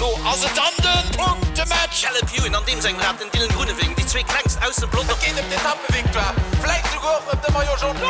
Elo ass et dann de Punktematch! Caleb Ewan an deem sengem Rad, den Dylan Groenewegen, déi zwee klengst aus dem Pelotong. Et geet ëm d'Etappevictoire, vläit souguer och ëm de Maillot Jaune.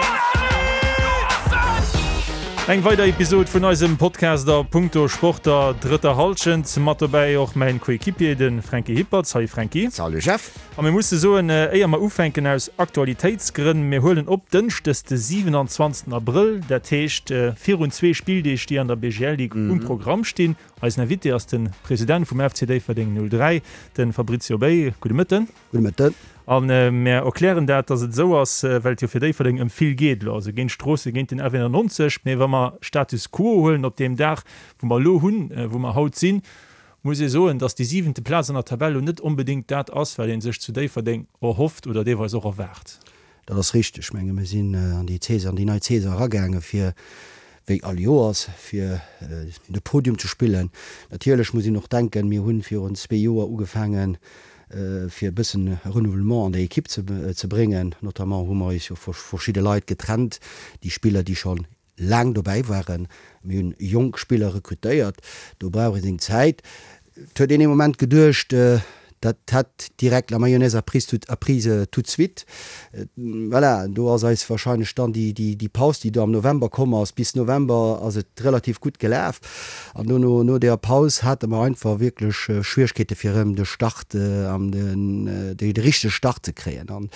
Eng weider Episod vun eisem Podcast a Punkto Sport der drëtter Hallschent. Mat dobäi och mäin Coéquipier, de Franky Hippert. Salut Franky. Salut Jeff. A mir musse soen, éier mer ufänken, aus Aktualitéitsgrënn, mir huelen op Dënschdes de 27 Abrëll, dat heescht virun zwee Spilldeeg, déi an der BGL Ligue um Programm stinn. Eisen Invité ass de President vum FC Déifferdeng 03, de Fabrizio Bay. Gudde Mëtten. Gudde Mëtten. A mir erklären dat, datt et esou ass, well et jo fir Déifferdeng ëm vill geet elo, also géint Stroossen, géint den F91. Mee wa mer Status quo huelen op deem Dag, wou mer elo hunn, wou mer haut sinn, muss ee soen, dass déi siwente Plaz an der Tabell elo net onbedéngt dat ass, wat ee sech zu Déifferdeng erhofft oder deelweis och erwaart. Dat ass richteg. Ech menge mir sinn an déi Saison, an déi nei Saison eragaange fir, wéi all Joers, fir de Podium ze spillen. Natierlech muss een och denken, mir hu virun zwee Joer ugefaangen, fir e bëssen Renouvellement an der Ekipp ze bréngen. Notamment hu mer eis jo vu verschidde Leit getrennt, déi Spiller, déi scho laang dobäi waren. Mir hunn jonk Spiller rekrutéiert, do brauch ee seng Zäit. Et huet een ee Moment geduecht, dat hätt direkt la mayonnaise a prise tout, a prise tout de suite. Voilà, do ass eis wahrscheinlech dann déi, déi, déi Paus, déi do am November komm ass, bis November ass et relativ gutt gelaf an dono, no deeër Paus hate mer einfach wierklech Schwieregkeete fir erëm de Start an den, de richtege Start ze kréien. An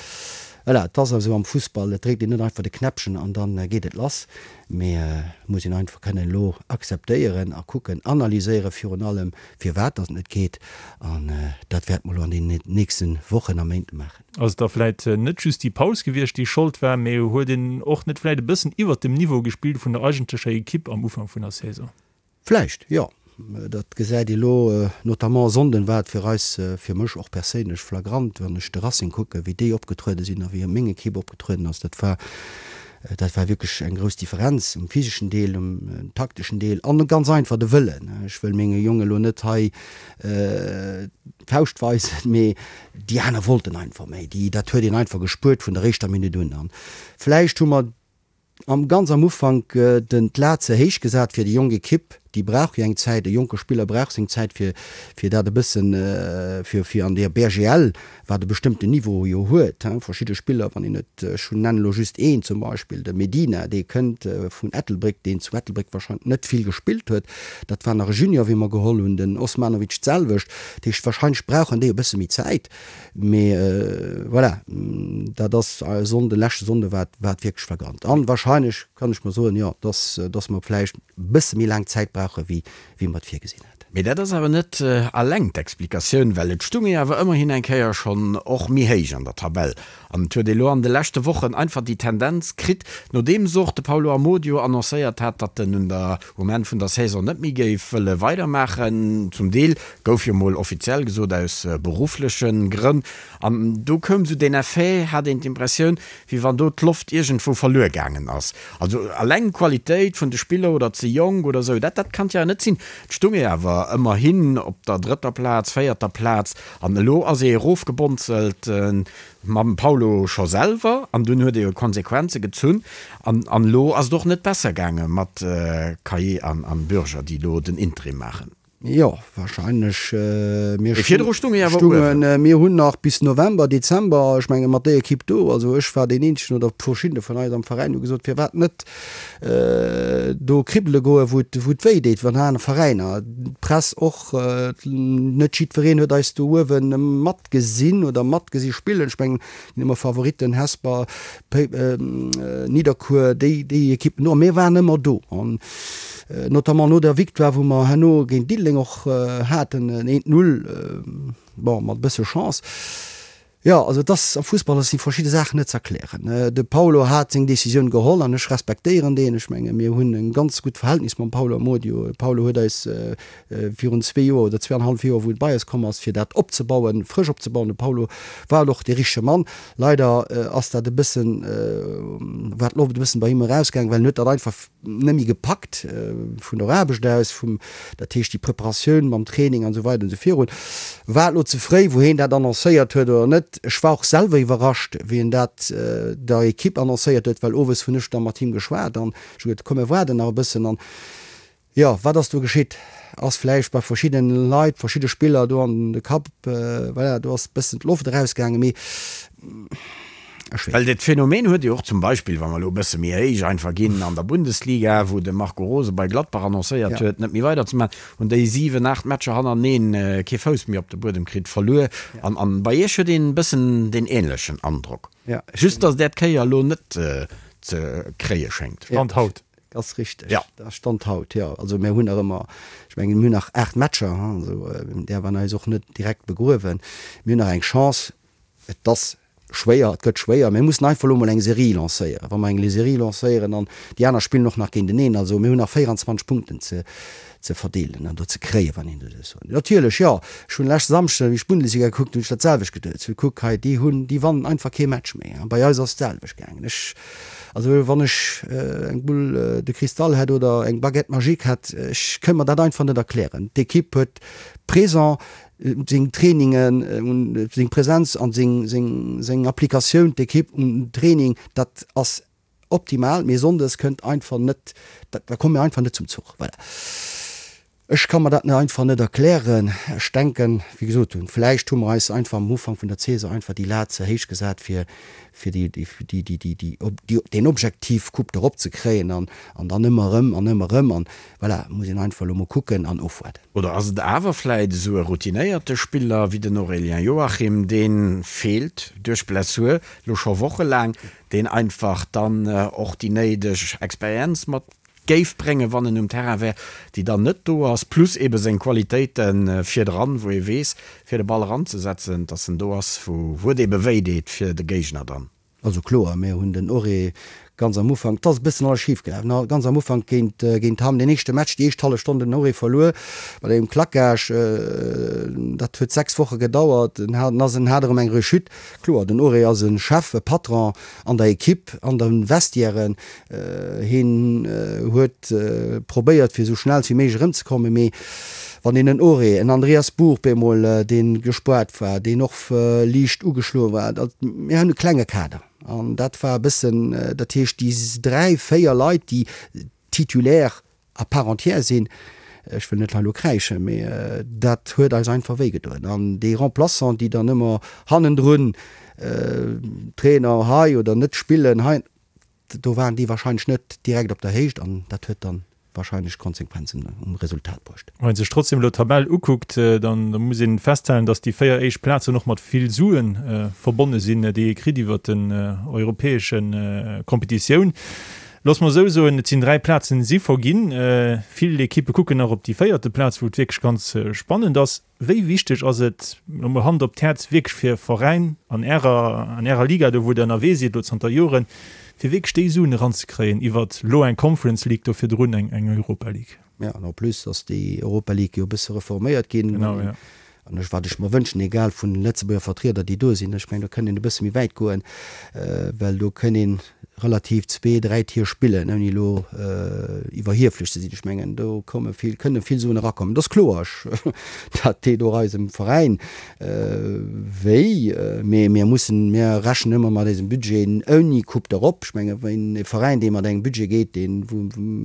Voilà, et ass esou am Fussball, et dréckt een net einfach de Knäppchen an da geet et lass, mee et muss een einfach kënnen elo akzeptéieren a kucken, analyséiere virun allem, firwat datt et net geet. An dat wäerte mer elo an deenen nächste Wochen a Méint maachen. Ass et da vläit net just déi Paus gewiescht, déi Schold war, mee huet een och net vläit e bëssen iwwert dem Niveau gespillt vun der eigentlecher Ekipp am Ufank vun der Saison? Vläicht, jo. Dat gesäit ee lo, notamment e Sonnden war et fir eis, fir mech och perséinlech flagrant, wann ech de Racing kucken, wéi déi opgetruede sinn a wéi meng Ekipp opgetrueden ass. Dat war, dat war wierklech eng grouss Differenz um physeschen Deel, um takteschen Deel an ganz einfach de Wëllen. Ech wëll menge Jonge lo net hei d'Fauscht weisen, mee déi aner wollten einfach méi. Déi, dat huet een einfach gespuert vun der éischter Minutt un. An vläicht hu mer Am ganz am Ufank den d'Lat ze héich gesat fir déi jonk Ekipp, déi brauch jo eng Zäit, e jonke Spiller brauch seng Zäit fir fir dat e bëssen fir fir an der BGL, wat e bestëmmten Niveau jo huet, hein, verschidde Spiller, wann een et, ech hunn nennen elo just een zum Beispill, de Medina, dee kënnt vun Ettelbréck, deen zu Ettelbréck wahrscheinlech net vill gespillt huet, dat war nach e Junior wéi mer geholl hunn, den Osmanovic d'selwecht, dat heescht wahrscheinlech brauchen déi e bësse méi Zäit. Mee voilà, dat ass e Sonnden, leschte Sonnde war et wierklech flagrant. An wahrscheinlech kann ech mer soen, jo, dass, dass mer vläicht e bësse méi laang Zäit brauche wéi, wéi mer et virgesinn haten. Mee dat ass awer net alleng d'Explikatioun, well et stung ee awer ëmmerhin eng Kéier schonn och méi héich an der Tabell. An et huet ee lo an de leschte Wochen einfach déi Tendenz kritt, nodeems och de Paulo Amodio annoncéiert hat, datt en un der um Enn vun der Saison net méi géif wëlle weidermaachen, zum Deel gouf jo mol offiziell gesot aus beruffleche Grënn, an do koum sou deen Effet, hat een d'Impressioun, wéi wann do d'Loft iergendwou verluer gaangen ass. Also alleng d'Qualitéit vun de Spiller oder ze jonk oder sou, dat dat kann et jo net sinn. Et stung ee awer ëmmerhin op der drëtter Plaz, véierter Plaz, an elo ass ee erofgebonzelt. Mam Paulo scho selwer, an dunn huet e jo Konsequenze gezunn, an an elo ass et och net besser gaange mat Caillet an an Bürger, déi elo den Interim maachen. Jo, wahrscheinlech. Mir Mee virdru stung ee awer uewen. Mir hunn nach bis November, Dezember, ech menge mat déi Ekipp do, also ech war deen eenzegen oder verschiddene vun eis am Veräin hu gesot, firwat net do kribbele goen, wou et wou et wéi deet, wann aner Veräiner, d'Press och, net jiddwereen huet eis do uewe mat gesinn oder matgesi spillen. Ech mengen, ginn ëmmer Favoritten, Hesper, Nidderkuer, déi, déi Ekippen do. A mir waren ëmmer do. An notamment no der Victoire, wou mer herno géint Diddeleng och haten, en eent Null, bon, mat e bësse Chance. Jo, also et ass, am Fussball si verschidde Saachen net ze erklären. De Paulo hat seng Decisioun geholl an ech respektéieren deen. Ech menge mir hunn e ganz gutt Verhältnis mam Paulo Amodio. De Paulo huet eis virun zwee Joer oder zweeanenhallef Joer, wou en bei eis komm ass, fir dat opzebauen, frësch opzebauen. De Paulo war och dee richtege Mann. Leider ass dat e bëssen, war d'Loft e bëssen bei him erausgaangen, well en huet dat einfach net méi gepackt vun der Aarbecht aus, vum, dat heescht déi Preparatioun mam Training an esou weider an esou virun. War et elo ze fréi, wou heen dat annoncéiert huet oder net? Ech war och selwer iwwerrascht, wéi en dat der Ekipp annoncéiert huet, well owes hunn ech da mat him geschwat an ech hu gesot, komm mir waarden nach e bëssen an. Jo, wat ass do geschitt? Ass vläicht bei verschiddene Leit, verschidde Spiller do an de Kapp, voilà, do ass bëssen d'Loft erausgaangen, mee ech weess. Well dat Phänomen huet Dir och zum Beispill, wa mer elo e bësse méi héich einfach ginn, an der Bundesliga, wou de Marco Rose bei Gladbach annoncéiert huet, net méi weiderzemaachen, hunn déi 7, 8 Matcher hannereneen kee Fouss méi op de Buedem kritt, verluer. An bei Iech huet een e bëssen deen änlechen Androck. Just datt Är d'Kéier elo net ze kréie schéngt. Stand haut. Ass richteg. Ja. Dat ass Stand haut, jo. Also mir hunn nach ëmmer, ech mengen, mir hunn nach 8 Matcher, hein, also däerf an eis och net direkt begruewen. Mir hunn nach eng Chance. Et ass schwéier, et gëtt schwéier. Mir mussen einfach elo mol eng Serie lancéieren. Wa mer eng Serie lancéieren an déi aner spillen och nach géinteneen, also mir hunn nach 24 Punkten ze ze verdeelen an do ze kréien, wann een dat esou soen. Natierlech, jo, ech hunn leschte Samschden, wéi ech d'Bundesliga gekuckt hunn, hunn ech dat selwecht geduet. Ech hunn kuck hei, déi hunn, déi wannen einfach kee Match méi. A bei eis ass d'selwecht gaangen. Ech, also wann ech eng Boule de cristal hätt oder eng Baguette magique hätt, ech kënnt mer dat einfach net erklären. D'Equipe huet présent seng Trainingen, seng Präsenz an seng, seng, seng Applikatioun, d'Equipe um Training, dat ass Optimal, mee Sonndes kënnt einfach net, da komme mir einfach net zum Zuch. Voilà. Ech ka mer dat net einfach net erklären. Ech denken, wéi gesot hunn, vläicht hu mer eis einfach am Ufank vun der Saison einfach déi Lat ze héich gesat, fir, fir déi, déi, déi, déi, déi, deen Objektiv Coupe d'Europe ze kréien an, an dann ëmmer erëm an ëmmer erëm. An voilà, muss een einfach elo mol kucken an ofwaarden. Oder ass et awer vläit esou e routinéierte Spiller wéi den Aurélien Joachim, dee feelt duerch Blessur elo scho wochelaang, deen einfach dann och déi néideg Experienz mat géif bréngen, wann en um Terrain wär, déi dann net do ass, plus ebe seng Qualitéite virdran, wou ee weess, fir de Ball eranzesetzen, dass en do ass, wou et ebe wéi deet fir de Géigner dann. Also kloer, mir hunn den Auré ganz am Ufank, et ass e bëssen alles schif gelaf, ne, ganz am Ufank géint, géint Hamm, deen éischte Match, déi éischt hallef Stonn den Auré verluer mat engem Claquage, dat huet 6 Woche gedauert, en hat, en hat erëm eng Rechute, Kloer, den Auré ass e Chef, e Patron an der Equipe, an de Vestiairen. Hien huet probéiert, fir esou schnell wéi méiglech erëmzekommen, mee wann een en Auré, en Andreas Buch bemol, dee gespoart war, deen och liicht ugeschloe war, dat, mir hunn e klenge Kader an dat war e bëssen, dat heescht déi dräi, véier Leit, déi Titulaire à part entière sinn, ech wëll net hei elo kräischen, mee dat huet eis einfach wéi gedoen. An déi Remplaçant, déi dann ëmmer hannendrun, Trainer hei oder net spillen hei, do waren déi wahrscheinlech net direkt op der Héicht an dat huet dann wahrscheinlech Konsequenzen um Resultat bruecht. Wann ee sech trotzdem elo d'Tabell ukuckt, dann muss ee festhalen, datt déi 4 éischt Plazen och mat vill Sue verbonne sinn, déi ee kritt iwwert den europäesche Competitioun. Looss mer esou soen, et sinn 3 Plazen si verginn. Vill Ekippe kucken nach op déi véierte Plaz, wou et wierklech ganz spannend ass. Wéi wichteg ass et, elo mol Hand op d'Häerz, wierklech fir e Veräin an Ärer, an Ärer Liga do, wou Der ënnerwee sidd elo zanter Joren, fir wierklech déi Suen eranzekréien iwwert elo eng Conference League, do virdrun eng Europa League? Jo, an en plus ass déi Europa League jo e bësse reforméiert ginn. Genau, jo. An ech, wat ech mer wënschen, egal vun den Lëtzebuerger Vertrieder, déi do sinn, ech mengen, do kënnt een e bësse méi wäit goen, well do kënn ee relativ zwee, dräi Tier spillen, ouni elo iwwerhieflech ze sinn. Ech mengen, do komme vill, kënne vill Suen erakommen. Et ass kloer, ech, dat deet och eisem Veräin wéi, mee mir mussen, mir rechnen ëmmer mat eisem Budget ouni Coupe d'Europe. Ech mengen, ween e Veräin, dee mat engem Budget geet, deen,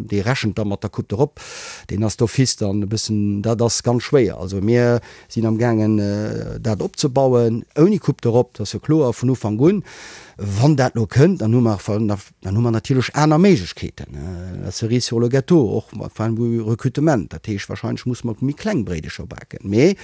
dee rechent da mat der Coupe d'Europe. Deen ass d'office dann e bëssen, dat ass ganz schwéier. Also mir sinn am gaangen dat opzebauen, ouni Coupe d'Europe, dat ass jo kloer vun Ufank un. Wann dat elo kënnt, dann hu mer, dann hu mer natierlech aner Méiglechkeeten, la cerise sur le gâteau, och mat point de vue Recrutement. Dat heescht, wahrscheinlech musse mer méi kleng Bréidecher baken. Mee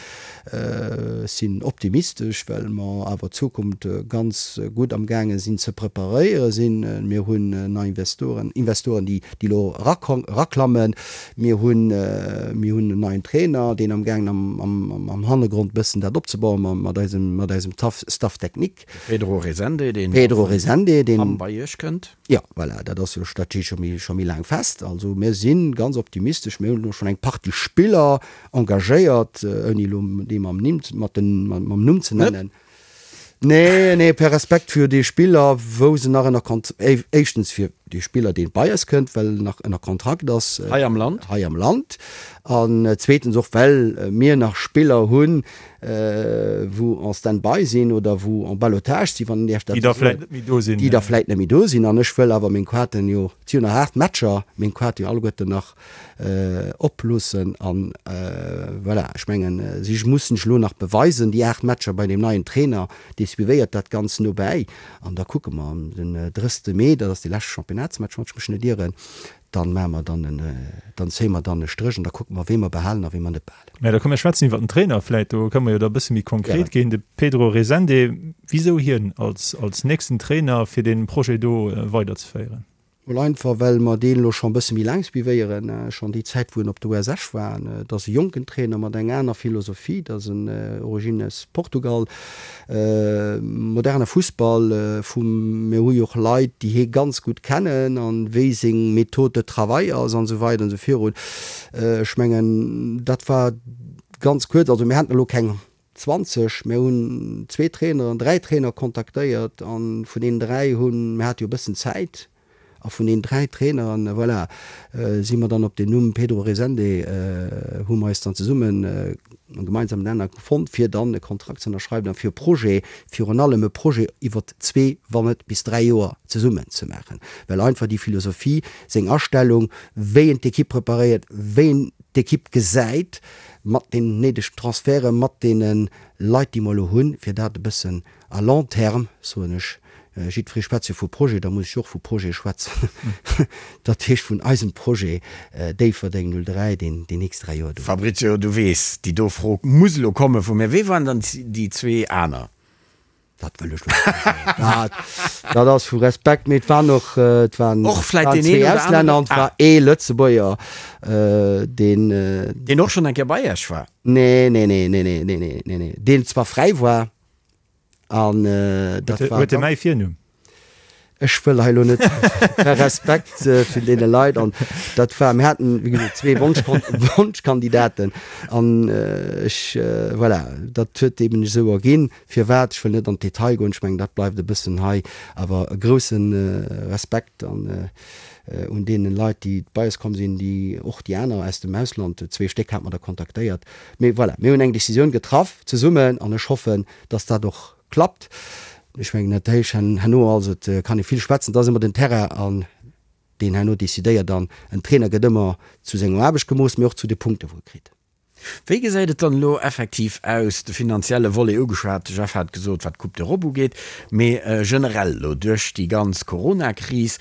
ech sinn optimistesch, well mer awer d'Zukunft ganz gutt am gaange sinn ze preparéiere sinn. Mir hunn nei Investoren, Investoren déi déi elo eraklammen. Mir hunn, mir hunn en neien Trainer, deen amgaangen am, am, am Hannergrond e bëssen dat opzebauen mat eisem, mat eisem Taff, Staff technique. De Pedro Resende, deen Pedro Resende, deen am bei Iech kënnt. Jo, voilà, dat ass jo, dat steet scho méi, scho méi laang fest. Also mir si ganz optimistesch. Mir hunn elo schonn eng Partie Spiller engagéiert, ouni elo déi mam Nimm, mat den, mam Numm ze nennen. Nee, nee, per Respekt fir déi Spiller, wou se nach ënner Kont-, éischtens fir. Dee Spiller, dee bei eis kënnt, well en nach ënner Kontrakt ass. Hei am Land. Hei am Land. An zweetens och, well mir nach Spiller hunn, wou en stand-by sinn oder wou en ballottage sinn, wann een däerf dat esou soen. Déi da vläicht net méi do sinn. Déi da vläicht net méi do sinn. An ech wëll awer meng Kroaten jo, et si jo nach 8 Matcher, meng Kroate jo alleguerten nach oploossen. An voilà, ech mengen, si mussen sech elo nach beweisen, déi 8 Matcher bei deem neien Trainer, dee suivéiert dat Ganzt nobäi. An da kucke mer den 30 Mee, dat ass dee leschte Championnatsmatch, wann ech mech net ieren, dann maache mer dann en, dann zéie mer dann e Stréch an da kucke mer, wee mer behalen a wee mer net behalen. Mä da komm mir schwätzen iwwer den Trainer vläit, do kënne mer jo da e bësse méi konkret ginn. De Pedro Resende, wisou hien als, als nächsten Trainer, fir dee Projet do weiderzeféieren? Mol einfach well mer deen elo scho bësse méi laang suivéieren, schonn déi Zäit wou en op der US Esch war. Et ass e jonken Trainer mat enger aner Philosophie, et ass en Origines Portugal, moderne Fussball vum, mir hu jo och Leit déi hie ganz gutt kennen an wéi seng Méthode de travail ass an esou weider an esou virun. Ech mengen dat war ganz kuerz, also mir haten elo keng 20, Mir hunn zwee Traineren, dräi Trainer kontaktéiert a vun deenen dräi hunn, mir hate jo e bëssen Zäit, a vun deenen dräi Traineren, voilà, si mer dann op den Numm Pedro Resende, hu mer eis dann zesummen e gemeinsamen Nenner fonnt, fir dann e Kontrakt ze ënnerschreiwen a fir e Projet, virun allem e Projet iwwer zwee, wann net bis dräi Joer zesummen ze maachen, well einfach déi Philosophie, seng Astellung, wéi en d'Ekipp preparéiert, wéi en d'Ekipp gesäit, mat den néidegen Transferte, mat deene Leit, déi mer elo hunn, fir dat e bëssen à long terme, soen ech, jiddweree schwätzt jo vu Projet, da muss ech och vu Projet schwätzen, dat heescht vun eisem Projet Déifferdeng 03, deen déi nächst 3 Joer do. Fabrizio, du weess, déi do Fro muss elo komme vu mir. Wee waren dann déi zwee aner? Dat wëll ech lo net soen. Dat, dat ass vu Respekt, mee et waren och, et waren, Och vläit waren deen zwee een oder Auslänner aneren. an et war Ah. ee Lëtzebuerger, deen. Deen och schonn eng Kéier bei Iech war? Nee, nee, nee, nee, nee, nee, nee, nee, nee, deen zwar fräi war an dat war. Huet e mäi Virnumm? Ech wëll hei elo net, Respekt vun deene Leit an dat war, mir haten wéi gesot zwee Wonschkandidaten an ech, voilà, dat huet eben sech esou erginn. Firwat, ech wëll net an d'Detail goen, ech mengen dat bleift e bëssen hei, awer e grousse Respekt an un deene Leit déi bei eis komm sinn, déi och déi aner aus dem Ausland, zwee Stéck hate mer der kontaktéiert. Mee voilà, mir hunn eng Décisioun getraff zesummen an ech hoffen, datt dat och Klappt. Ech mengen dat héich herno, also et kann ee vill schwätzen, et ass ëmmer den Terrain an deen herno decidéiert an en Trainer gëtt ëmmer zu senger Aarbecht gemooss, mee och zu de Punkte wou e kritt. Wéi gesäit et dann elo effektiv aus, de finanzielle Volet ugeschwat, de Jeff hat gesot, wat d'Coupe d'Europe ugeet, mee generell elo duerch déi ganz Coronakris,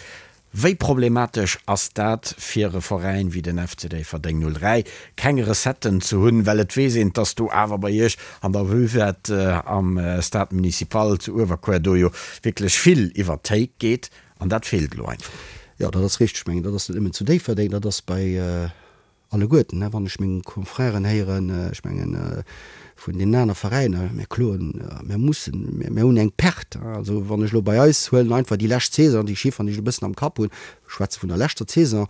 Wéi problematesch ass dat fir e Veräin wéi den FC Déifferdeng 03, keng Recetten ze hunn, well et weess een, dass do awer bei Iech an der Buvette am Stade Municipal zu Uewerkuer do jo wierklech vill iwwert d'Théik geet an dat feelt elo einfach. Jo, dat ass richteg. Ech mengen, dat ass net nëmmen zu Déifferdeng, dat ass bei Alleguerten, wann ech meng Confrèren héieren, ech mengen vun deenen aner Veräiner, mir kloen, mir mussen, mir hunn eng Perte. Also wann ech elo bei eis huelen einfach déi lescht Saison, déi Chifferen, déi ech elo e bëssen am Kapp hunn, ech schwätze vun der leschter Saison,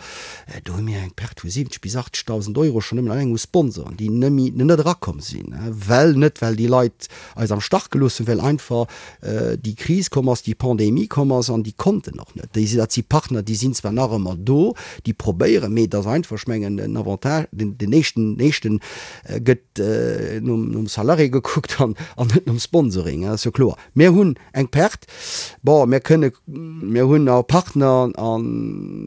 do hu mir eng Perte vu 70 bis 80.000 Euro schonn nëmmen alleng u Sponsoren, déi nëmme net erakomm sinn, well, net well déi Leit eis am Stach gelooss hunn, well einfach déi Kris komm ass, déi Pandemie komm ass an déi konnten och net. Déi, dat si Partner, déi sinn zwar nach ëmmer do, déi probéieren, mee et ass einfach, ech mengen, den Avantage, den, den éischten, den éischten gëtt nom, nom Salarié gekuckt an, an net nom Sponsoring, dat ass jo kloer. Mir hunn eng Perte. Bon, mir kënne, mir hunn och Partner an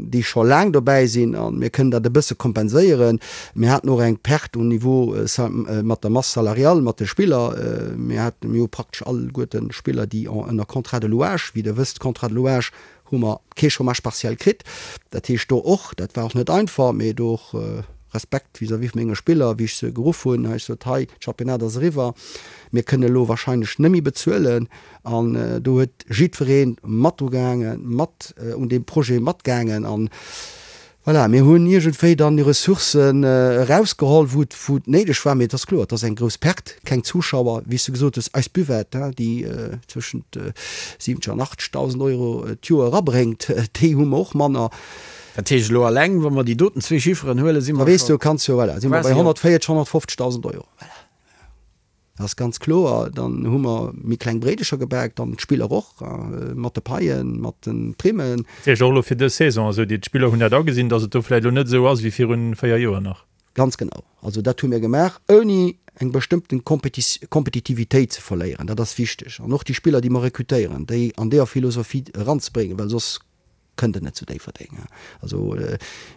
déi scho laang dobäi sinn a mir kënnen dat e bësse kompenséieren. Mir haten och eng Perte um Niveau mat der Masse salariale, mat de Spiller. Mir haten, mir hu praktesch alleguerten Spiller, déi en ënner Contrat de louage, wéi Der wësst, Contrat de louage hu mer kee Chômage partiel kritt. Dat heescht do och, dat war och net einfach, mee do och Respekt vis-à-vis vu menge Spiller, wéi ech se geruff hunn, hu ech gesot, hei, d'Championnat ass eriwwer, mir kënnen elo wahrscheinlech net méi bezuelen. An do huet jiddweree mat dru gehaangen, mat un deem Projet matgaangen. An voilà, mir hunn iergendwéi dann déi Ressourcen erausgeholl, wou et, wou et néideg war. Mee et ass kloer, et ass eng grouss Perte, keng Zuschauer, wéi s du gesot hues, eis Buvette, déi zwëschent 70 an 80.000 Euro d'Joer erabréngt, déi hu mer och manner. Dat heescht elo alleng, wa mer déi doten zwee Chifferen huelen, si mer scho quasi op. Da weess du, kanns jo, voilà, si mer bei 140, 150.000 Euro. Voilà. Dat ass ganz kloer. Dann hu mer méi kleng Bréidecher gebak, dann d'Spiller och, mat de Paien, mat de Primmen. Dat heescht och elo fir dës Saison, also déi d'Spiller hunn dat agesinn, datt et do vläicht elo net esou ass wéi virun 4 Joer nach. Ganz genau. Also dat hu mir gemaach, ouni eng bestëmmten Kompetitivitéit ze verléieren. Dat ass wichteg. An och déi Spiller, déi mer rekrutéieren, déi an deeër Philosophie eranzebréngen, well soss kënnt en net zu Déifferdeng. Also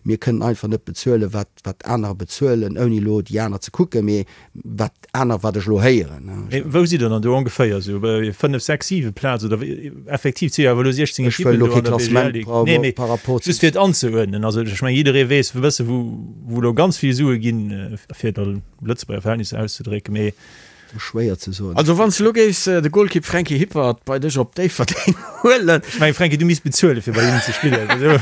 mir kënnen einfach net bezuelen, wat wat anerer bezuelen, ouni elo déi aner ze kucken, mee wat aner, wat ech elo héieren. Mee wou sidd Der dann do ongeféier? Esou bei 5, 6, 7 Plaz oder wéi? Effektiv, et si jo awer elo 16 Ech wëll Ekippen elo do kee an der Klassement BGL Ligue. Nee, mee par rapport zu. just fir et anzeuerdnen. Also ech mengen, jidderee weess e bësse wou wou elo ganz vill Sue ginn, fir et a Lëtzebuerger Verhältnisser auszedrécken, mee Schwéier ze soen. Also wann s de elo géifs de Golkipp Franky Hippert bei dech op Déifferdeng huelen. Ech mengen Franky, du misst bezuelen fir bei hinnen ze spillen. Also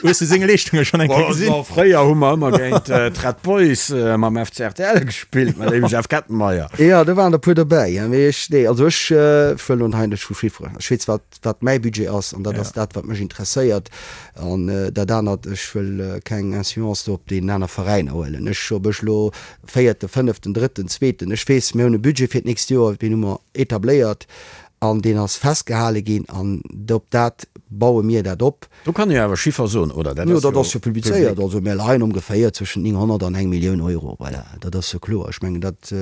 hues du seng Leeschtunge schonn eng Kéier gesinn? Bon, fréier hu mer ëmmer géint d'Red Boys mam FC rtl gespillt, mat dem Jeff Kettenmeyer. Jo, do waren der puer dobäi. Mee ech, nee, also ech wëll elo hei net vu Chifferen. Ech weess wat wat mäi Budget ass an dat ass dat wat mech interesséiert an dat anert, ech wëll keng Influence do op deenen aner Veräiner huelen. Ech, ob ech elo véierten, fënneften, drëtten, zweeten, ech weess, mir hunn e Budget fir d'nächst Joer, deen hu mer etabléiert an deen ass festgehale ginn an op dat baue mir dat op. Do kann ee jo awer Chiffer soen, oder? Dat ass jo dat ass jo publizéiert. Also mir leien ongeféier zwëschen 900 an eng Millioun Euro. Voilà, dat ass jo kloer. Ech mengen, dat,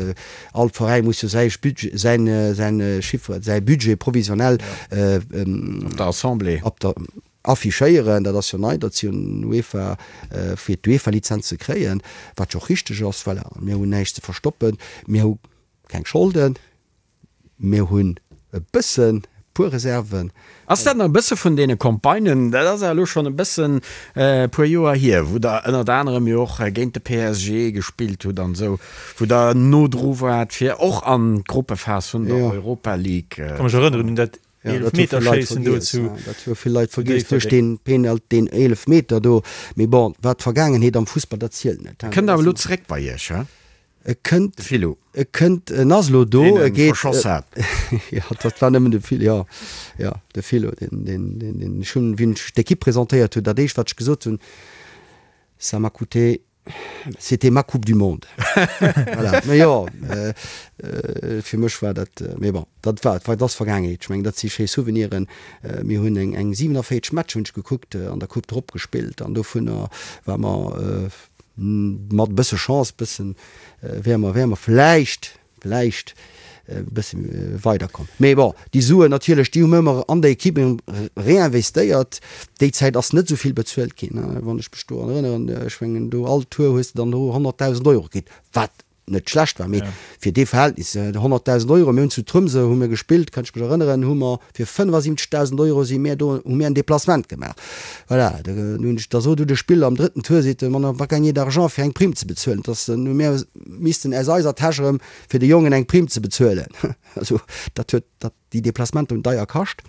all Veräi muss jo säi Budget, säin, säin Chiffre, säi Budget provisionnel Op der Assemblée. op der, affichéieren. Dat ass jo nei, datt si un UEFA, fir d'UEFA-Lizenz ze kréien, wat jo och richteg ass. Voilà, mir hunn näischt ze verstoppen. Mir hu keng Scholden. Mir hunn e bëssen, e puer Reserven. Ass dat nach e bësse vun deene Campagnen, dat ass awer elo schonn e bëssen e puer Joer hier, wou Der ënnert anerem jo och géint de PSG gespillt hutt an esou, wou Der no dru waart, fir och an d'Gruppephas vun der Europa League ze kommen? Ka mech erënneren un dat Eelefmeterschéissen do zu Dat hu vill Leit vergiess duerch deen Penalty, deen Eelefmeter do. Mee bon, wat d'Vergaangenheet am Fussball, dat zielt net. E kënnt awer elo zeréck bei Iech, he? E kënnt, De Filou. e kënnt, en ass elo do, Deen e e geet, verschoss hat. Jo, dat war nëmmen de Phil, jo, jo, de Philo, deen, deen, deen, deen, ech hunn, wéi ech d'Equipe presentéiert hunn, dat éischt wat ech gesot hunn, Ça m'a coûté, c'était ma coupe du monde. Voilà, mä jo, fir mech war dat, mee bon, dat war, dat ass Vergaangenheet. Ech mengen, dat si schéi Souveniren. Mir hunn eng, eng 47 Matcher, hunn ech gekuckt, an der Coupe drop gespillt an dovunner war mer, Mat e bësse Chance, bëssen, wäre mer, wäre mer vläicht, vläicht e bësse weiderkomm. Mee bon, déi Suen natierlech, déi hu mir ëmmer an der Equipe réinvestéiert. Déi Zäit ass net esou vill bezuelt ginn, wann ech mech do erënneren. Ech mengen, do all Tour hues de dann do 100.000 Euro kritt, wat net schlecht war, mee fir dee Verhältnis, 100.000 Euro, mir hunn zu Tromsø hu mir gespillt, kann ech mech erënneren, hu mer fir 75.000 Euro si mir do, hu mir en Déplacement gemaach. Voilà, da hunn ech, da sot du de Spiller am drëtten Tour, seet e, on n'a pas gagné d'argent fir eng Prime ze bezuelen, dass hu mir missten aus eiser Täsch erëm fir de Jongen eng Prime ze bezuelen. Also dat huet, dat. Déi Deplacementer hunn deier kascht.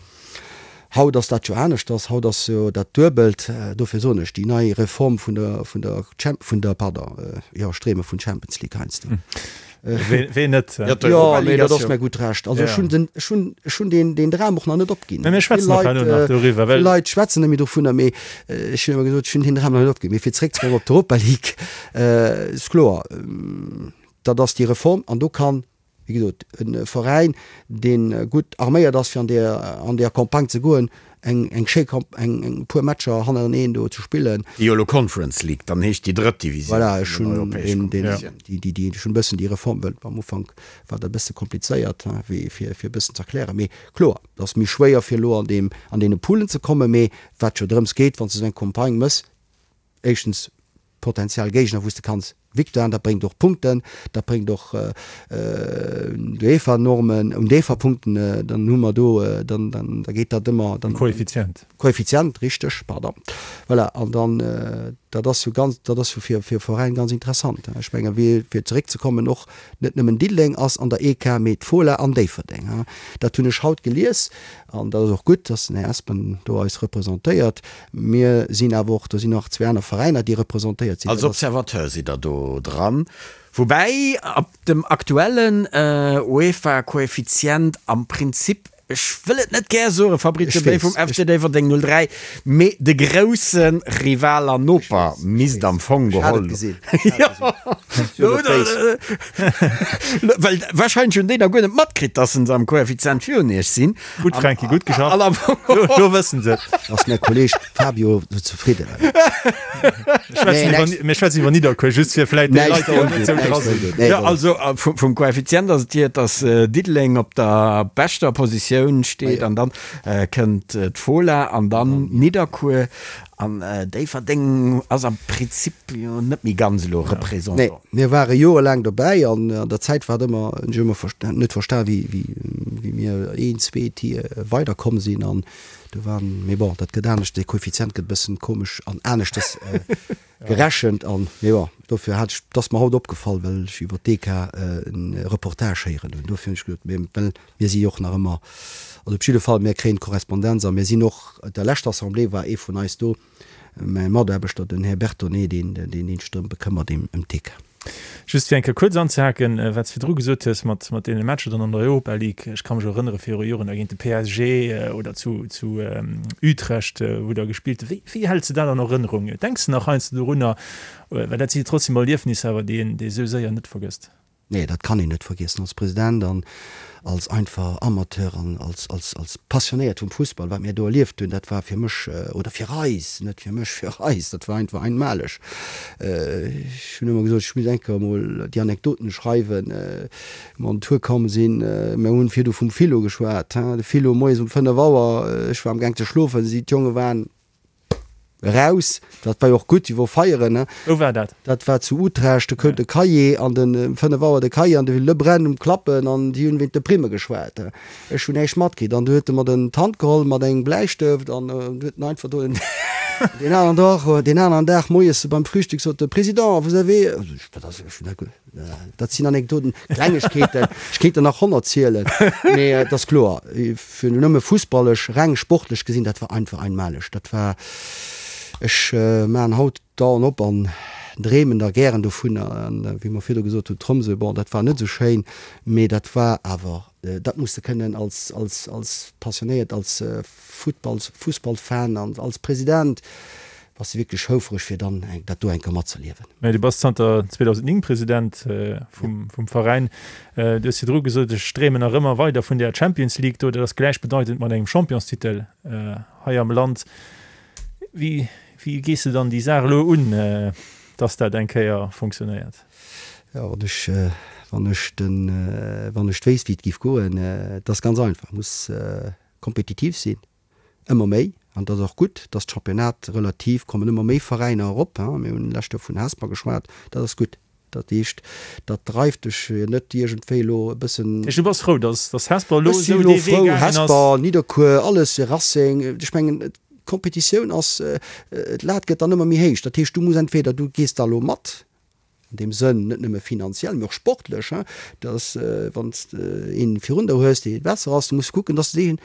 Haut ass dat jo aneschters. Haut ass jo dat Duebelt. Dofir soen ech, déi nei Reform vun der, vun der Champ-, vun der, pardon, jo, ech dreeme vun Champions League heiansdo. Ween net? Jo, mee dat ass mir gutt Recht. Also ech hunn den, ech hunn, ech hunn deen, deen Dram och nach net opginn. Mä mir schwätzen och herno nach doriwwer, well. Vill Leit schwätzen net méi dovunner, mee ech hunn ëmmer gesot, ech hunn deen Dram nach net opginn. Mee fir zeréckzekommen op d'Europa League, ass kloer, dat ass déi Reform an do kann Wéi gesot, e Veräin, dee gutt arméiert ass, fir an där, an där Campagne ze goen, eng, eng schéi Camp, eng, eng puer Matcher hannereneen do ze spillen. Déi jo elo Conference League dann heescht, déi drëtt Divisioun Voilà, ech vun den hunn europäesche deen, deen, Kompetitiounen. déi, déi, déi, ech hunn e bëssen déi Reform, well am Ufank war dat e bësse komplizéiert, hein, wéi fir, fir e bëssen ze erklären. Mee kloer, et ass méi schwéier, fir elo an deem, an deene Poolen ze kommen. Mee wat jo drëms geet, wann s de esou eng Campagne méchs, éischtens Potentiell Géigner wou s de kanns Victoiren, dat bréngt och Punkten, dat bréngt och d'UEFA-Normen, un d'UEFA-Punkten, dann hu mer do, dann dann da geet dat ëmmer, dann. Koeffizient. Koeffizient, richteg, pardon. Voilà, an dann, dat ass jo ganz, dat ass jo fir fir e Veräin ganz interessant. Ech menge wéi, fir zeréckzekommen, och net nëmmen Diddeleng ass an der EK, mee d'Fola an Déifferdeng. Dat hunn ech haut gelies an dat ass och gutt, dass den Här Espen do eis representéiert. Mir sinn awer och, do sinn nach zwee aner Veräiner, déi representéiert sinn. Als Observateur sidd Der do dran, woubäi ab dem aktuellen UEFA-Koeffizient am Prinzip. Ech wëll et net gär soen, Fabrizio Bay vum FC Déifferdeng 03, mee de grousse Rival an Noper misst am Fong geholl. Well warscheinlech hunn déi nach guer net matkritt, dass se am Koeffizient virun iech sinn. Gutt Franky, gutt geschafft. Lo wëssen se et. Ass mäi Kolleg Fabio zefridden? Mir schwätzen iwwer Nidderkuer, just fir vläit déi Leit, déi net esou dra sinn. Jo, also vum Koeffizient ass et hier, dass Diddeleng op der beschter Positioun steet an dann kënnt d'Fola an dann Nidderkuer an Déifferdeng ass am Prinzip jo net méi ganz elo Représentant. Nee, mir ware jorelaang dobäi an an der Zäit war et ëmmer, hunn ech ëmmer net verstan, wéi wéi mir een, zwee Tier weiderkomm sinn an Do waren, mee bon, dat gëtt anescht, dee Koeffizient gëtt e bëssen komesch an aneschtes gerechent an, mee bon, dofir hat ech, 't ass mer haut opgefall, well ech iwwer d'EK e Reportage héieren hunn, dofir hunn ech gesot, mee well mir si jo och nach ëmmer, also op jidde Fall, mir kréien d'Korrespondenz a mir sinn och, op der leschter Assemblée war ee vun eis do, Mäi Mataarbechter, den Här Bertone, deen deen sech drëm bekëmmert, ëm d'EK. Just fir eng Kéier kuerz anzehaken, wat s de virdru gesot hues mat mat deene Matcher dann an der Europa League. Ech ka mech erënnere viru Joren da géint de PSG oder zu zu Utrecht, wou Der gespillt hutt. Wéi wéi häls de dat an Erënnerung? Denks de nach heiansdo dorunner? Well dat si jo trotzdem Erliefnisser awer, déi een déi esou séier net vergësst. Nee, dat kann een net vergiessen als President an als einfach Amateur an als, als, als Passionéiert vum Fussball. Wat mir do erlieft hunn, dat war fir mech, oder fir eis, net fir mech, fir eis, dat war einfach einmaleg. Ech hunn ëmmer gesot, ech muss eng Kéier emol déi Anekdoten schreiwen, wou mer an den Tour komm sinn. Mir hunn virdu vum Philo geschwat, hein, de Philo moies um 5 Auer, ech war amgaang ze schlofen, si, d'Jonge waren, Eraus, dat war jo och gutt, déi wor feieren, ne? Wou war dat? Dat war zu Utrecht, do koum de Cahier an den, um 5 Auer de Cahier an de Lebrun um Klappen an déi hunn wéint de Primme geschwat. Ech hunn näischt matkritt an du huet e mer den d'Hand geholl mat engem Bläistëft an du huet en einfach do den, deen aneren Dag, deen aneren Dag moies beim Frühstück sot de, Président, vous avez, wat ass, ech hunn dat, Dat sinn Anekdoten, Klengegkeeten, ech kéint der nach 100 zielen, mee et ass kloer, fir nëmme fussballesch, reng sportlech gesinn, dat war einfach einmaleg. Dat war, ech maachen haut d'Aen op an dreemen da gären dovunner. An wéi mer virdu gesot hunn, Tromsø, bon, dat war net esou schéin, mee dat war awer, dat muss de kënnen als, als, als Passionéiert, als Futtballs, Fussballfan an als President bass de wierklech houfreg fir dann dat do eng Kéier matzerliewen. Mä du bass zanter 2009 President vum vum Veräin. Du hues virdru gesot, ech dreemen nach ëmmer weider vun där Champions League do. Dat ass gläichbedeitend mat engem Championstitel hei am Land. Wéi wéi gees de dann déi Saach elo un, dass dat eng Kéier funktionéiert? Jo, wann ech wann ech den wann ech wéisst wéi et géif goen, et ass ganz einfach, muss kompetitiv sinn, ëmmer méi, an dat ass och gutt, dass d'Championnat relativ, kommen ëmmer méi Veräiner erop, mir hunn d'lescht Joer vun Hesper geschwat, dat ass gutt. Dat heescht, dat dreift dech net iergendwéi elo e bëssen. Dat heescht, du bass frou, dass dass Hesper elo Ech si esou elo dee Wee frou, gaangen ass? Hesper, Nidderkuer, alles, Racing, ech mengen, d'Kompetitioun ass, d'Lat gëtt dann ëmmer méi héich. Dat heescht, du muss entweder, du gees da elo mat, an deem Sënn, net nëmme finanziell, mee och sportlech, dass wann s de een virun der hues, dee besser ass, du muss kucken, dass de deen,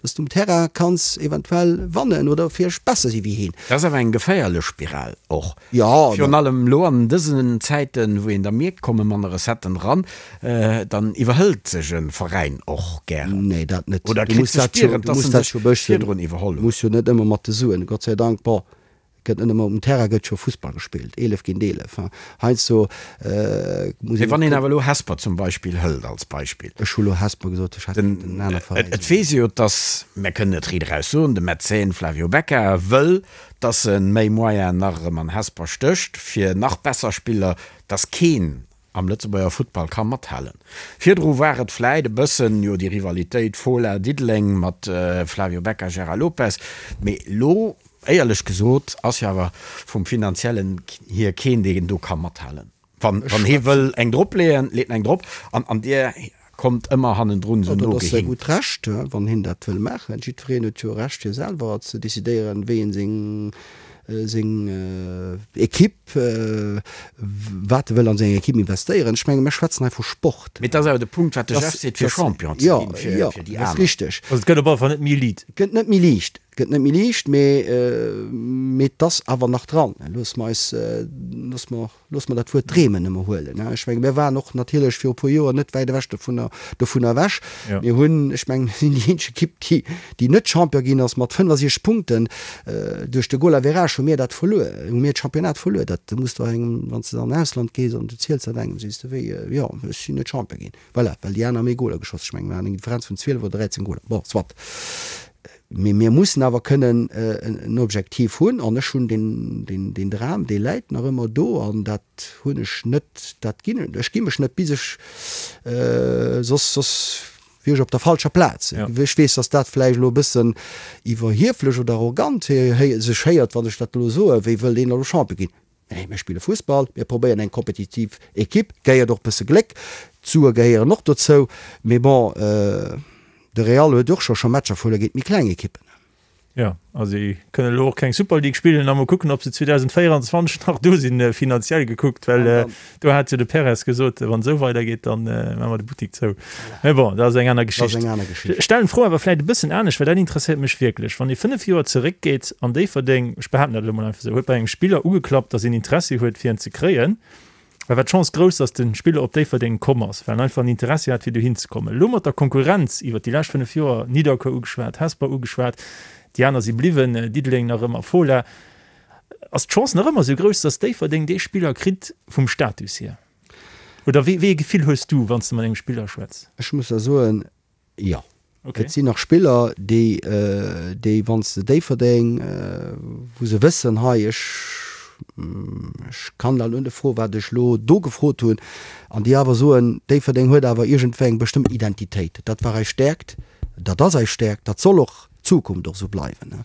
dass du um Terrain kanns eventuell wannen oder vläicht besser si wéi heen. Dat ass awer eng geféierlech Spiral och, Jo, virun allem elo an dësen Zäiten, wou een da mierkt, komme manner Recetten eran, dann iwwerhëlt sech e Veräin och gären. Nee, dat net. Oder Du kritt muss ze dat jo, spieren, du dass muss en dat sech jo bëssen, virdrun iwwerholl huet. muss jo net ëmmer mat de Suen, Gott sei Dank, bon, Gëtt net ëmmer um Terrain gëtt scho Fussball gespillt, 11 géint 11, hein. Heiansdo muss Mee wann een awer elo Hesper zum Beispill hëlt als Beispill. Ech hu lo Hesper gesot, ech hätt kéinten en aner Veräin Et soen. weess ee jo, dass, mär kënnen et riit eraus soen, de Mäzen Flavio Becca wëll, dass e méi Moyenen nach erëm an Hesper stécht, fir nach besser Spiller, dass keen am Lëtzebuerger Futtball ka mathalen. Virdru war et vläit e bëssen, jo, déi Rivalitéit Fola, Diddeleng mat Flavio Becca, Gérard Lopez, mee elo, éierlech gesot, ass jo awer vum Finanziellen hier keen, deen do ka mathalen. Wann hie wëll eng dropleeën, leet en eng drop an dir kommt ëmmer hannendrun esou Dat ass säi nogehinkt. gutt Recht, wann hien dat wëll maachen. Jiddwereen huet jo Recht fir selwer ze decidéieren, wéi en seng seng Equipe, wat e wëll an seng Equipe investéieren. Ech menge mir schwätzen hei vu Sport. Mee et ass awer de Punkt, wat de Jeff seet, fir Champion ze ginn, fir déi aner. Jo, dat ass richteg. Also et gëtt op alle Fall net méi liit. Et gëtt net méi liicht. Gëtt net méi liicht, mee mee et ass awer nach dran. Loosse mer eis, loosse mer, loosse mer dat Wuert dreemen ëmmer huelen. Ech menge mir waren och natierlech viru e puer Joer net wäit ewech dovunner, dovunner ewech. Mir hunn, ech mengen, mir sinn déi eenzeg Ekipp, déi, déi net Champion ginn ass mat 65 Punkten. Duerch de Goal-average hu mir dat verluer, hu mir d'Championnat verluer. Dat muss der engem, wann s de an Ausland gees an du ziels dat engem, sees de wéi, jo, ech sinn net Champion ginn. Voilà, well déi aner méi Goler geschoss. Ech mengen, mir haten eng Differenz vun 12 oder 13 Goler. Bon, soit. Mee mir mussen awer kënnen en Objektiv hunn. An ech hunn deen Dram, dee läit nach ëmmer do. An dat hunn ech net, dat ginn, ech gi mech net, bis ech, soss, soss wier ech op der falscher Plaz. Ech weess, datt dat vläicht elo e bëssen iwwerhieflech oder arrogant sech héiert, wann ech dat elo soen, wéi wëllt een elo Champion ginn? Nee, mir spille Fussball, mir probéieren eng kompetitiv Ekipp, gehéiert och e bësse Gléck, d'Sue gehéieren och dozou, mee bon, de Real huet och scho scho Matcher verluer géint méi kleng Ekippen. Jo, a si kënnen elo och keng Super League spillen a mol kucken, ob se 2024 nach do sinn, finanziell gekuckt, well do hat jo de Perez gesot, wann esou weidergeet, da maache mer de Buttik zou. Mä bon, dat ass eng aner Geschicht. Ech stellen d'Fro awer vläicht e bëssen anescht, well dat interesséiert mech wierklech. Wann ee 5 Joer zeréckgeet an Déifferdeng, ech behaapten dat elo mol einfach esou, huet bei engem Spiller ugeklappt, datt een Interessi huet fir en ze kréien, da war d'Chance grouss, datt de Spiller op Déifferdeng komm ass, well en einfach en Interessi hat fir dohin ze kommen. Elo mat der Konkurrenz iwwert déi lescht 5 Joer, Nidderkuer ugeschwat, Hesper ugeschwat, déi aner si bliwwen, Diddeleng nach ëmmer, Fola, ass d'Chance nach ëmmer esou grouss, datt Déifferdeng dee Spiller kritt vum Status hier? Oder wéi ee Gefill hues du, wann s de mat engem Spiller schwätz? Ech muss der soen, jo. Et sinn nach Spiller, déi, déi wann s de Déifferdeng, wou se wëssen, hei, ech, ech kann da elo net froen, wat ech elo do gefrot hunn, an déi awer soen, Déifferdeng huet awer iergendwéi eng bestëmmt Identitéit. Dat war eis Stäerkt, dat ass eis Stäerkt, dat soll och d'Zukunft och esou bleiwen.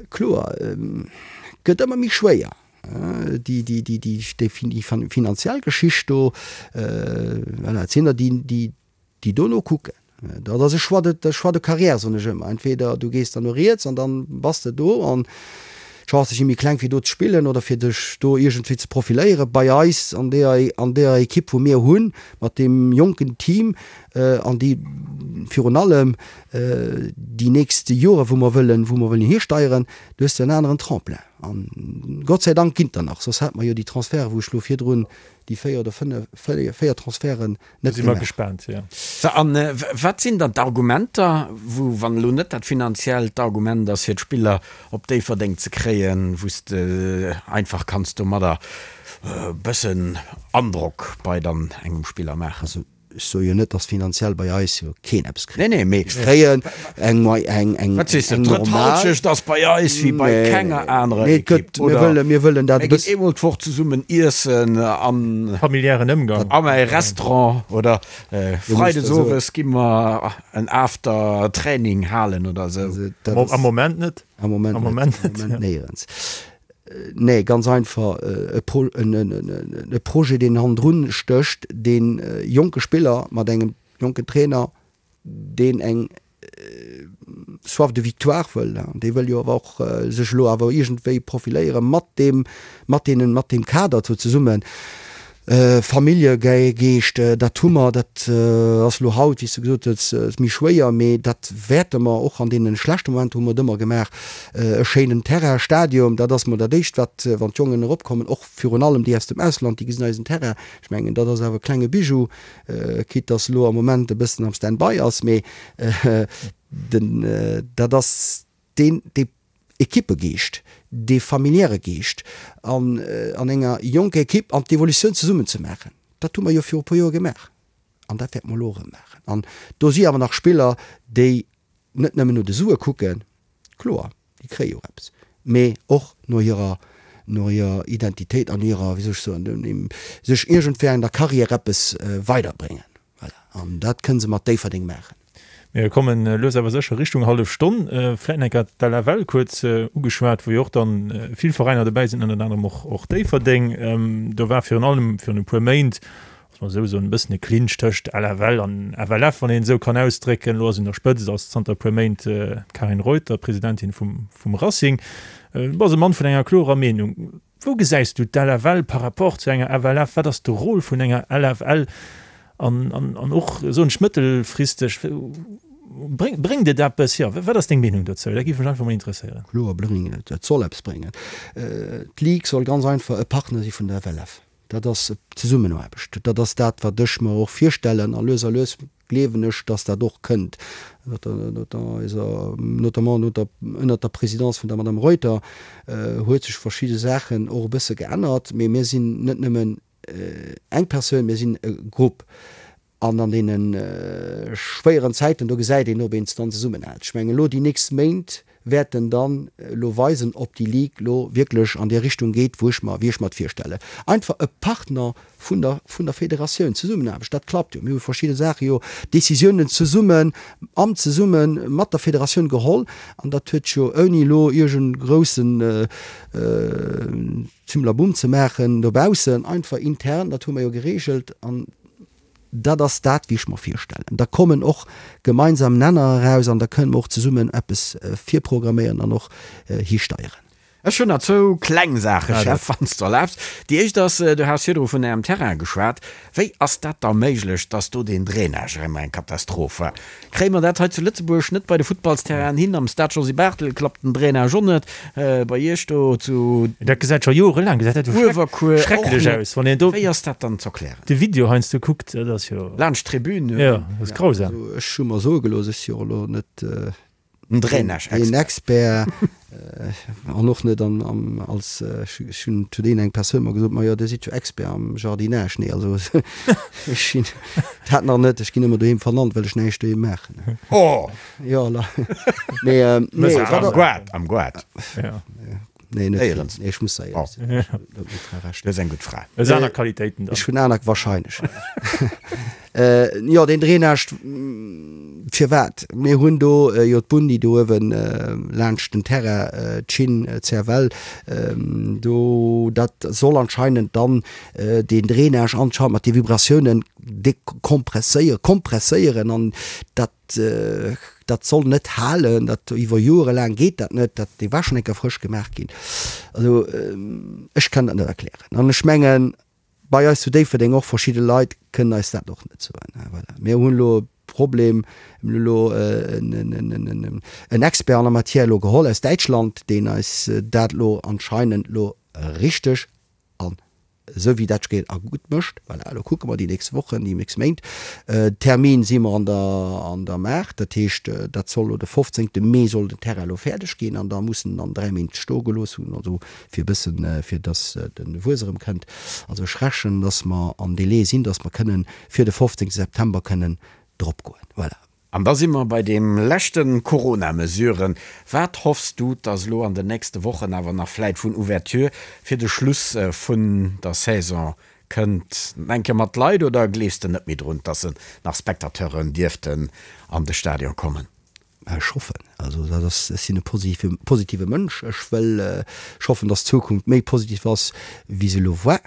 Kloer, gëtt ëmmer méi schwéier. Déi finanziell Geschicht do, voilà, et sinn der, déi dono kucken. Dat ass e Choix de, Choix de carrière, soen ech ëmmer. Entweder du gees dann no riets an dann bass de do an d'Chancë si méi kleng fir do ze spillen oder fir dech do iergendwéi ze profiléieren. Bei eis an deeër, an deeër Ekipp wou mir hunn, mat deem jonken Team an déi virun allem déi nächst Jore wou mer wëllen, wou mer wëllen histeieren, do hues de en aneren Tremplin. An Gott sei Dank ginn der nach, soss hätte mer jo déi Transferte, wou ech elo virdrun déi 4 oder 5, 4 Transferten net gemaach. Si mer gespaant, jo. Sou, an wat sinn dann d'Argumenter, wou, wann elo net dat finanziellt Argument ass, fir d'Spiller op Déifferdeng ze kréien, wou s de einfach kanns domadder e bëssen Androck bei dann engem Spiller maachen? Also Ech soe jo net, dass finanziell bei eis jo keen eppes kritt. Nee, nee, mee. Mir kréien eng, eng, eng, Wat sees de, eng d'drëtt normal. Halschecht ass bei eis wéi bei Nee, kenger anerer nee, et Ekipp, gëtt, mir oder? wëllen, mir wëllen dat Mir e ginn bëss. eemol d'Woch zesummen iessen an. Familiären Ëmgang. Am mäi Restaurant oder Du muss freides der soen. owes gi mer en After-Training halen oder esou. Also dat Am ass. Moment net. Am Moment Am net, Moment am net, Moment ja. néierens. Nee, ganz einfach e Projet, deen hannendrun stécht, dee jonke Spiller mat engem jonken Trainer, deen eng Soif de victoire wëll, dee wëll jo awer och sech elo awer iergendwéi profiléiere mat deem, mat deenen, mat deem Kader do zesummen. Familljegeescht, dat hu mer, dat ass elo haut, wéi s de gesot hues, méi schwéier, mee dat wäerte mer och an deene schlechte Momenter hu mer et ëmmer gemaach. E schéinen Terrain, Stadium, dat ass mol dat Éischt, wat, wann d'Jongen eropkommen, och virun allem déi aus dem Ausland, déi gesinn eisen Terrain. Ech mengen, dat ass awer e klenge Bijou, quitte dass elo am Moment e bëssen am Stand-by ass, mee den, dat ass deen, dee Ekippegeescht, dee familiäre Geescht an an enger jonker Ekipp an d'Evolutioun zesummen ze maachen, dat hu mer jo viru e puer Joer gemaach an dat wäerte mer elo erëm maachen. An do si awer nach Spiller, déi net nëmmen no de Sue kucken, kloer, déi kréie jo och eppes, mee och no hirer, no hirer Identitéit an hirer, wéi soll ech soen, sech iergendwéi an der Carrière eppes weiderbréngen. Voilà, an dat kënne se mat Déifferdeng maachen. Mir kommen lues awer sécher Richtung hallef Stonn. Vläit nach eng Kéier d'LFL kuerz ugeschwat, wou jo och dann vill Veräiner dobäi sinn, ënnert anerem och och Déifferdeng. Do war virun allem virun e puer Méint, muss mer esou soen, e bëssen e Clinch tëscht LFL an FLF, wann een et esou kann ausdrécken. Elo ass un der Spëtzt ass zanter e puer Méint d'Karin Reuter, Presidentin vum vum Racing. Du bass e Mann vun enger klorer Meenung. Wou gesäis du d'LFL par rapport zu enger FLF? Wat ass de Rôle vun enger LFL an, an, an och, soen ech, mëttelfristeg? Bréngt et eppes? Jo, wat ass deng Meenung dozou? Dat géif mech einfach mol interesséieren. Kloer bréngt et, et soll eppes bréngen. D'Ligue soll ganz einfach e Partner si vun der FLF. Dat ass Zesummenaarbecht. Dat ass dat, wat ech mer och virstellen. A lues a lues gleewen ech, dass dat och kënnt, notamment ënnert der Présidence vun der Madame Reuter huet sech verschidde Saachen och e bësse geännert. Mee mir sinn net nëmmen eng Persoun, mir sinn e Grupp. An an deene schwéieren Zäiten, do gesäit een, ob een dann zesummenhält. Ech mengen, elo déi nächst Méint wäerten dann elo weisen, ob déi Ligue elo wierklech an déi Richtung geet, wou ech mer, wéi ech mer et virstellen. Einfach e Partner vun der, vun der Federatioun, Zesummenaarbecht, dat klappt jo. Mir hu verschidde Saache jo, Décisiounen zesummen, am zesumme mat der Federatioun geholl an dat huet jo ouni elo iergend groussen Zimlabumm ze maachen dobaussen, einfach intern, dat hu mer jo geregelt an Dat ass dat, wéi ech mer virstellen. Da kommen och gemeinsam Nenner eraus an da kënnen mer och zesummen eppes virprogramméieren an och histeieren. Ech hunn nach zwou kleng Saache, Chef, wann s de erlaabs. Déi éischt ass, Du has virdru vun Ärem Terrain geschwat. Wéi ass dat da méiglech, dass do deen Drainage ëmmer eng Katastroph war? Kréie mer dat hei zu Lëtzebuerg net bei de Futtballsterrainen hin? Am Stade Josy Barthel klappt den Drainage och net. Bei Iech do zu. Dat gesäit scho jorelaang gesäit dat jo Uewerkuer och schrecklech net. aus, wann een do. Wéi ass dat dann z'erklären? De Video heiansdo kuckt, dat ass jo. Laanscht d'Tribün. Jo, dat ass grausam. Also ech hu mer soe gelooss, ech si jo och elo net Den Drainage-Expert. Een Expert an och net an, an als, ech hunn zu deenen eng Persoun mer gesot, ma jo, Dir sidd jo Expert am Jardinage. Nee, also ech sinn dat nach net. Ech ginn ëmmer doheem vernannt, well ech näischt doheem maachen. Oh! Jo, la. Nee, nee, wat. Am Goart, am Goart. Ja. Nee, net vill. Nee, ech muss da éierlech sinn. Ech hunn net meng Fra Recht. Du hues eng gutt Fra. Hues aner Qualitéiten dann. Ech hunn aner, wahrscheinlech. Jo, deen Drainage, firwat? Mir hunn do jo d'Bunn, déi do uewe laanscht den Terrain, d'Schinn, d'CFL, do, dat soll anscheinend dann deen Drainage anscheinend mat de Vibratiounen dekompresséieren, kompresséieren an dat, Dat soll net halen, dat iwwer Joere laang geet dat net, dat dee war schonn eng Kéier frësch gemaach ginn. Also ech kann dat net erklären an ech mengen bei eis zu Déifferdeng och verschidde Leit kënnen eis dat och net soen. Voilà, mir hunn elo e Problem, mir hunn elo en Expert en la matière elo geholl aus Däitschland, deen eis dat elo anscheinend elo richteg an esou wéi dat geet a gutt mécht. Voilà, elo kucke mer déi nächst Wochen, déi nächst Méint. Termin si mer an der, an der Maach, dat heescht, dat soll elo de 15. Mee soll den Terrain elo fäerdeg ginn an da muss en dann 3 Méint stoe gelooss hunn, also fir e bëssen, fir datt de Wuess erëm kënnt. Also ech rechnen, datt mer am Délai sinn, datt mer kënnen fir de 15. September kënnen drop goen. Voilà. An da si mer bei deem leschten Corona-Mesuren. Wat hoffs du, dass elo an den nächste Wochen awer nach vläit vun Ouverture fir de Schluss vun der Saison kënnt? Eng Kéier mat Leit oder gleefs de net méi drun, dass se nach Spectateuren dierften an de Stadion kommen? Ech hoffen. Also dat ass, ech sinn e positive, positive Mënsch. Ech wëll, ech hoffen, dass d'Zukunft méi positiv ass, wéi se elo war.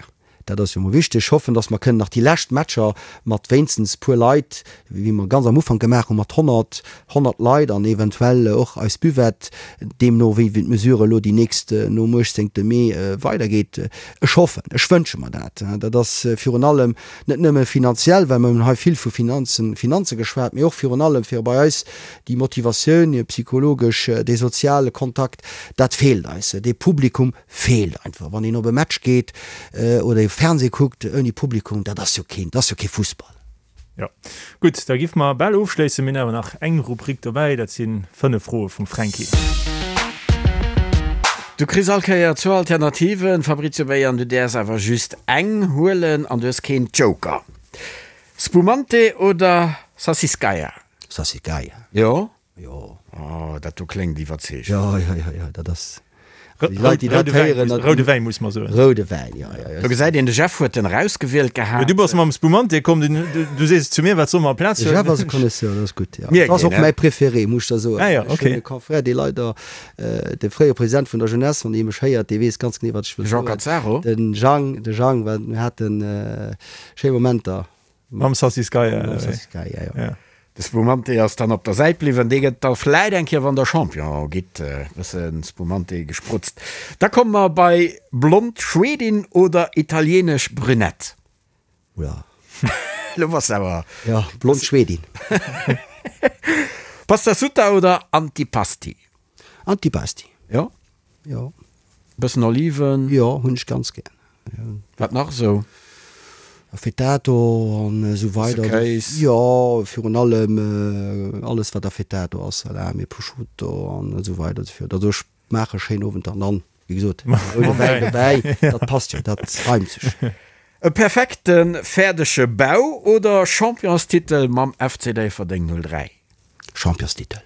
Dat ass jo emol wichteg. Ech hoffen, dass mer kënnen nach déi lescht Matcher mat wéinstens puer Leit, wéi mer ganz am Ufank gemaach hunn, mat 100, 100 Leit an eventuell och eis Buvette, deemno wéi d'Mesure elo déi nächst nom 18. Mee weidergeet. Ech hoffen, ech wënsche mer dat. Dat ass virun allem net nëmme finanziell, well mer hunn hei vill vu Finanzen, Finanze geschwat, mee och virun allem fir bei eis déi Motivatioun, psychologesch, dee soziale Kontakt, dat feelt eis, dee Publikum Feelt einfach. Wann een op e Match geet oder e Fernseh kuckt ouni Publikum, dat ass jo keen, dat ass jo kee Fussball. Jo, gutt, da giff mer bal ofschléissen. Mir hunn awer nach eng Rubrik dobäi, dat si 5 Froe vum Fränki. Du kriss all Kéier zwou Alternativen, Fabrizio Bay, an du däerfs awer just eng huelen an du hues keen Joker. Spumante oder Sassicaia? Sassicaia. Jo? Jo. Oh, dat do kléngt iwwerzeegend. Jo, jo, jo, jo, dat ass. Déi Leit, déi dat héieren, dat. Roude Wäin, muss mer soen. Roude Wäin, jo, jo, jo. Do gesäit een, de Jeff huet en erausgewielt gehat. Jo, du bass mam Spumante komm, du sees zu mir, wat soll mer amplaz huelen? De Jeff ass e Connaisseur, dat ass gutt, jo. Dat ass och mäi Préféré, muss ech der soen. Ah jo, ok. Ech hunn e Confrère, dee leider, de fréiere President vun der Jeunesse, wann dee mech héiert, dee weess ganz genee, wat ech wëll soen. De Jean Cazzaro? De Jang, de Jang, well mir hate schéi Momenter. Mam Sassicaia. Mam Sassicaia, jo. Ja. De Spumante ass dann op der Säit bliwwen. Dee gëtt da vläit eng Kéier, wann der Champion gitt, e bësse Spumante gesprutzt. Da komme mer bei blond Schwedin oder italienesch Brünett. Oula. Lo bass de awer. Jo, blond Schwedin. Pastasutta oder Antipasti? Antipasti. Jo? Jo. Bëssen Oliven? Jo, hunn ech ganz gär. Wat nach esou? Affettato an esou weider. Bësse Kéis? Jo, virun allem alles wat Affettato ass, Salami, Prosciutto an esou weider esou fort. Also ech maache schéin Owenter an dann, wéi gesot, roude Wäin dobäi, dat passt jo, dat reimt sech. E perfekte fäerdege Bau oder Championstitel mam FC Déifferdeng 03? Championstitel.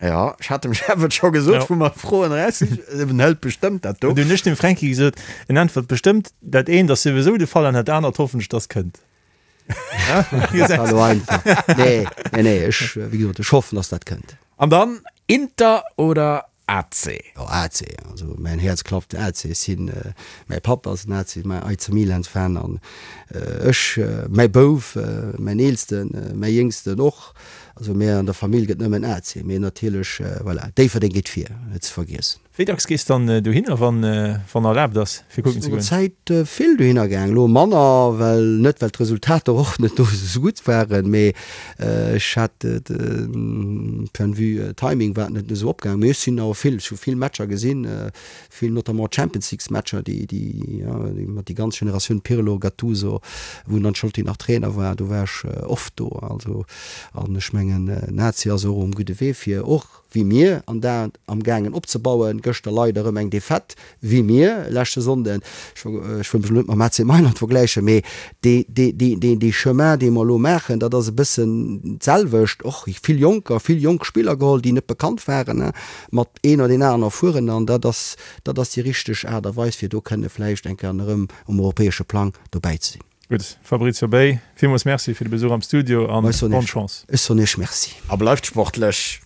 Jo, ech hat dem Jeff et scho gesot, wou mer d'Froen eraus sinn. En hëlt bestëmmt dat do. An du hunn ech dem Fränki gesot, en äntwert bestëmmt, dat eent ass souwisou de Fall an dat anert hoffen ech, dass kënnt. Dat war elo einfach. Nee, nee, nee, ech, wéi gesot, ech hoffen, dass dat kënnt. An dann Inter oder AC. Jo AC, also mäin Häerz klappt AC. Ech sinn, mäi Papp ass en AC, mäi AC Milan Fan an ech, mäi Bouf, mäin eelsten, mäi jéngsten och. Also mär an der Famill gëtt nëmmen AC, mee natierlech, voilà, Déifferdeng geet vir, net ze vergiessen. Wéi dacks gees dann dohinner, wann erlaabt ass, fir kucken ze goen? Zäit vill dohinner gaang, elo manner, well net well d'Resultater och net do esou gutt waren, mee ech hat point de vue Timing war et net esou opgaang, mee ech sinn awer vill, ech hu vill Matcher gesinn, vill notamment Champions Leagues Matcher, déi déi mat déi ganz Generatioun Pirlo, Gattuso, wou den Ancelotti nach Trainer war, do war ech oft do, also an ech mengen Lazio ass och um gudde Wee fir och wéi mir, an dat am gaangen opzebauen. Gëschter leider erëm eng Defaite, wéi mir, leschte Sonnden. Ech wëll mech elo net mam AC Mailand vergläichen, mee dee Chemin, dee mer elo maachen, dat ass e bëssen d'selwecht. Och vill Jonker, vill jonk Spiller geholl, déi net bekannt waren, mat een oder deen aneren erfueren. An dat ass, dat ass déi richteg Aart a Weis, fir do kënne vläicht eng Kéier erëm um europäesche Plang dobäi ze sinn. Gutt, Fabrizio Bay, villmools Merci fir de Besuch am Studio an bonne Chance. Ech soen Iech Merci. A bleift sportlech!